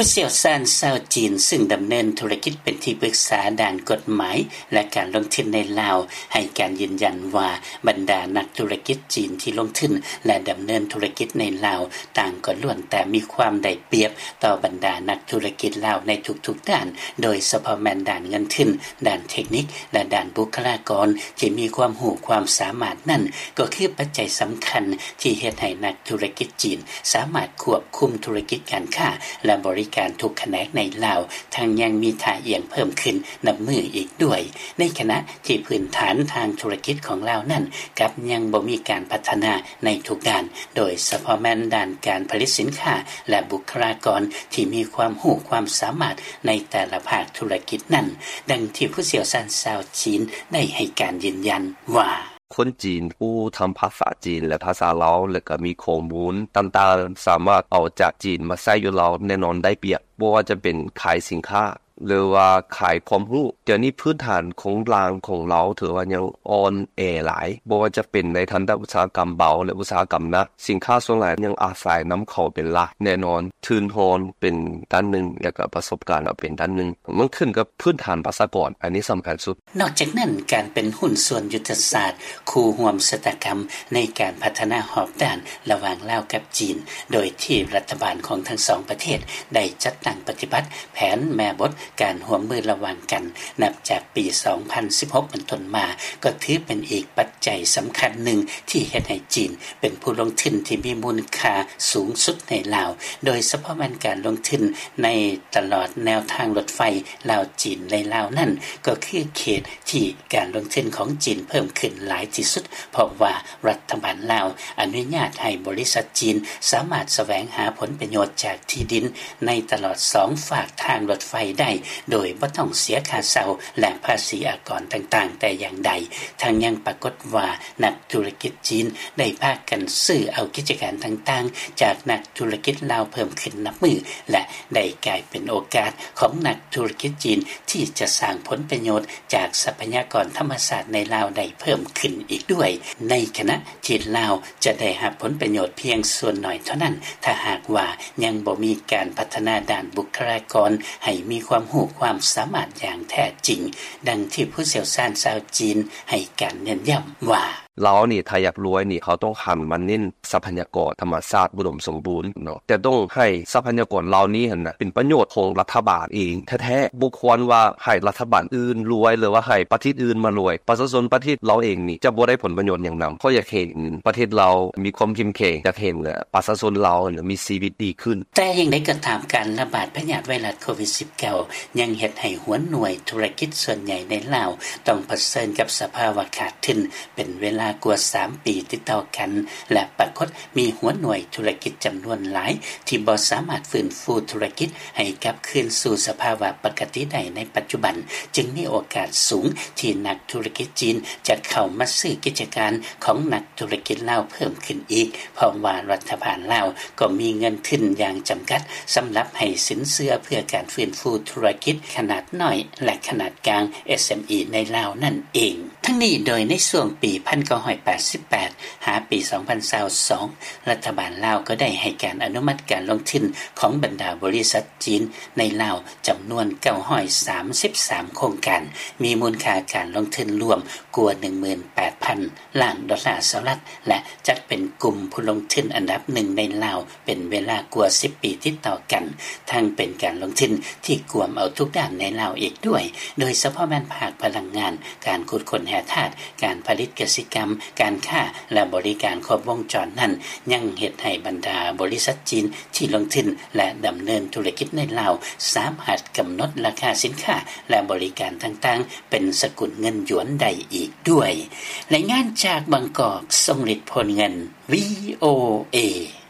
ຜູ້ຊ່ຽວຊານຊາວຈີນ ຊຶ່ງດຳເນີນທຸລະກິດເປັນທີ່ປຶກສາດ້ານກົດໝາຍ ແລະ ການລົງທຶນໃນລາວ ໃຫ້ການຢືນຢັນວ່າ ບັນດານັກທຸລະກິດຈີນທີ່ລົງທຶນ ແລະ ດຳເນີນທຸລະກິດໃນລາວ ຕ່າງກໍລ້ວນແຕ່ມີຄວາມໄດ້ປຽບຕໍ່ບັນດານັກທຸລະກິດລາວໃນທຸກໆດ້ານ, ໂດຍສະເພາະແມ່ນດ້ານເງິນທຶນ, ດ້ານເທັກນິກ ແລະ ດ້ານບຸກຄະລາກອນທີ່ມີຄວາມຮູ້ຄວາມສາມາດນັ້ນ ກໍຄືປັດໄຈສຳຄັນທີ່ເຮັດໃຫ້ນັກທຸລະກິດຈີນສາມາດຄວບຄຸມທຸລະກິດການຄ້າ ແລະ ບໍລິການທຸກຂະແໜງໃນລາວ ທັງຍັງມີທ່າອ່ຽງເພີ່ມຂຶ້ນນັບມື້ອີກດ້ວຍ. ໃນຂະນະທີ່ພື້ນຖານທາງທຸລະກິດຂອງລາວນັ້ນ ກັບຍັງບໍ່ມີການພັດທະນາໃນທຸກດ້ານ, ໂດຍສະເພາະແມ່ນດ້ານການຜະລິດສິນຄ້າ ແລະ ບຸກຄະລາກອນທີ່ມີຄວາມຮູ້ຄວາມສາມາດໃນແຕ່ລະພາກທຸລະກິດນັ້ນ, ດັ່ງທີ່ຜູ້ຊ່ຽວຊານຊາວຈີນໄດ້ໃຫ້ການຢືນຢັນວ່າ: ຄົນຈີນຜູ້ທຳພາສາຈີນ ແລະ ພາສາລາວ ແລະ ກໍມີຂໍ້ມູນຕ່າງໆ ສາມາດເອົາຈາກຈີນມາໃຊ້ຢູ່ລາວ ແນ່ນອນໄດ້ປຽບ, ບໍ່ວ່າຈະເປັນຂາຍສິນຄ້າ ຫຼືວ່າຂາຍຄວາມຮູ້. ດຽວນີ້ພື້ນຖານໂຄງລ່າງຂອງລາວຖືວ່າຍັງອ່ອນແອຫຼາຍ, ບໍ່ວ່າຈະເປັນໃນທັນຕະອຸດສາຫະກຳເບົາ ແລະ ອຸດສາຫະກຳໜັກ. ສິນຄ້າສ່ວນຫຼາຍຍັງອາໄສນຳເຂົ້າເປັນຫຼັກ. ແນ່ນອນ ທຶນຮອນເປັນດ້ານໜຶ່ງ ແລະ ກໍປະສົບການກໍເປັນດ້ານໜຶ່ງ. ມັນຂຶ້ນກັບພື້ນຖານປະຊາກອນ, ອັນນີ້ສຳຄັນສຸດ. ນອກຈາກນັ້ນ, ການເປັນຫຸ້ນສ່ວນຍຸດທະສາດຄູ່ຮ່ວມຊະຕາກຳໃນການພັດທະນາຮອບດ້ານລະຫວ່າງລາວກັບຈີນ, ໂດຍທີ່ລັດຖະບານຂອງທັງສອງປະເທດໄດ້ຈັດຕັ້ງປະຕິບັດແຜນແມ່ບົດການຮ່ວມມືລະຫວ່າງກັນ ນັບຈາກປີສອງພັນສິບຫົກເປັນຕົ້ນມາ, ກໍຖືເປັນອີກປັດໄຈສຳຄັນໜຶ່ງທີ່ເຮັດໃຫ້ຈີນເປັນຜູ້ລົງທຶນທີ່ມີມູນຄ່າສູງສຸດໃນລາວ, ໂດຍສະເພາະແມ່ນການລົງທຶນໃນຕະຫຼອດແນວທາງລົດໄຟລາວຈີນໃນລາວນັ້ນ, ກໍຄືເຂດທີ່ ການລົງທຶນຂອງຈີນເພີ່ມຂຶ້ນຫຼາຍທີ່ສຸດ, ເພາະວ່າລັດຖະບານລາວອະນຸຍາດໃຫ້ບໍລິສັດຈີນສາມາດສະແຫວງຫາຜົນປະໂຫຍດຈາກທີ່ດິນໃນຕະຫຼອດສອງຟາກທາງລົດໄຟໄດ້ ໂດຍບໍ່ຕ້ອງເສຍຄ່າເຊົ່າ ແລະ ພາສີອາກອນຕ່າງໆແຕ່ຢ່າງໃດ. ທັງຍັງປາກົດວ່ານັກທຸລະກິດຈີນໄດ້ພາກັນຊື້ເອົາກິດຈະການຕ່າງໆຈາກນັກທຸລະກິດລາວເພີ່ມຂຶ້ນນັບມື້ ແລະ ໄດ້ກາຍເປັນໂອກາດຂອງນັກທຸລະກິດຈີນທີ່ຈະສ້າງຜົນປະໂຫຍດ ຈາກຊັບພະຍາກອນທຳມະຊາດໃນລາວໄດ້ເພີ່ມຂຶ້ນອີກດ້ວຍ, ໃນຂະນະທີ່ລາວຈະໄດ້ຮັບຜົນປະໂຫຍດພຽງສ່ວນໜ້ອຍເທົ່ານັ້ນ ຖ້າຫາກວ່າຍັງບໍ່ມີການພັດທະນາດ້ານບຸກຄະລາກອນໃຫ້ມີຄວາມຮູ້ຄວາມສາມາດຢ່າງແທ້ຈິງ, ດັ່ງທີ່ຜູ້ຊ່ຽວຊານຊາວຈີນໃຫ້ການເນັ້ນຢ້ຳວ່າ: ລາວນີ້ ຖ້າຢາກລວຍນີ້ ເຮົາຕ້ອງຫັນມາເນັ້ນ ຊັບພະຍາກອນທຳມະຊາດອຸດົມສົມບູນເນາະ, ແຕ່ຕ້ອງໃຫ້ຊັບພະຍາກອນເຫຼົ່ານີ້ຫັ້ນນະ ເປັນປະໂຫຍດຂອງລັດຖະບານເອງແທ້ໆ, ບໍ່ຄວນວ່າໃຫ້ລັດຖະບານອື່ນລວຍ ຫຼືວ່າໃຫ້ປະເທດອື່ນມາລວຍ. ປະຊາຊົນປະເທດລາວເອງນີ້ຈະບໍ່ໄດ້ຜົນປະໂຫຍດຫຍັງນຳ. ຂ້ອຍຢາກເຫັນປະເທດລາວມີຄວາມເຂັ້ມແຂງ, ຢາກເຫັນປະຊາຊົນລາວຫັ້ນນະມີຊີວິດດີຂຶ້ນ. ແຕ່ຢ່າງໃດກໍຕາມ, ການລະບາດພະຍາດໄວຣັສໂຄວິດສິບເກົ້າ ຍັງເຮັດໃຫ້ຫົວໜ່ວຍທຸລະກິດສ່ວນໃຫຍ່ໃນລາວ ຕ້ອງປະເຊີນກັບສະພາວະຂາດທຶນ ເປັນເວລາກວ່າສາມປີຕິດຕໍ່ກັນ ແລະ ປາກົດມີຫົວໜ່ວຍທຸລະກິດຈຳນວນຫຼາຍທີ່ບໍ່ສາມາດຟື້ນຟູທຸລະກິດໃຫ້ກັບຄືນສູ່ສະພາວະປົກກະຕິໄດ້ໃນປັດຈຸບັນ, ຈຶ່ງມີໂອກາດສູງທີ່ນັກທຸລະກິດຈີນຈະເຂົ້າມາຊື້ກິດຈະການຂອງນັກທຸລະກິດລາວເພີ່ມຂຶ້ນອີກ, ເພາະວ່າລັດຖະບານລາວກໍມີເງິນທຶນຢ່າງຈຳກັດສຳລັບໃຫ້ສິນເຊື່ອເພື່ອການຟື້ນຟູທຸລະກິດຂະໜາດນ້ອຍ ແລະ ຂະໜາດກາງ ເອສເອັມອີ ໃນລາວນັ້ນເອງ. ທັງນີ້ໂດຍໃນຊ່ວງປີໜຶ່ງພັນເກົ້າຮ້ອຍແປດສິບແປດ ຫາປີສອງພັນຊາວສອງ ລັດຖະບານລາວກໍໄດ້ໃຫ້ການອະນຸມັດການລົງທຶນຂອງບັນດາບໍລິສັດຈີນໃນລາວຈຳນວນເກົ້າຮ້ອຍສາມສິບສາມໂຄງການ, ມີມູນຄ່າການລົງທຶນລວມກວ່າໜຶ່ງໝື່ນແປດພັນລ້ານດອນລາສະຫະລັດ ແລະ ຈັດເປັນກຸ່ມຜູ້ລົງທຶນອັນດັບໜຶ່ງໃນລາວ ເປັນເວລາກວ່າສິບປີຕິດຕໍ່ກັນ, ທັງເປັນການລົງທຶນທີ່ກວມເອົາທຸກດ້ານໃນລາວອີກດ້ວຍ, ໂດຍສະເພາະແມ່ນພາກພະລັງງານ, ການຂຸດຄົ້ນແຮ່ທາດ, ການຜະລິດກະສິກຳ, ການຄ້າ ແລະ ບໍລິການຄົບວົງຈອນນັ້ນ ຍັງເຮັດໃຫ້ບັນດາບໍລິສັດຈີນທີ່ລົງທຶນ ແລະ ດຳເນີນທຸລະກິດໃນລາວ ສາມາດກຳນົດລາຄາສິນຄ້າ ແລະ ບໍລິການຕ່າງໆ ເປັນສະກຸນເງິນຢວນໄດ້ອີກດ້ວຍ. ລາຍງານຈາກບາງກອກ, ຊົງລິດ ໂພນເງິນ, ວີໂອເອ.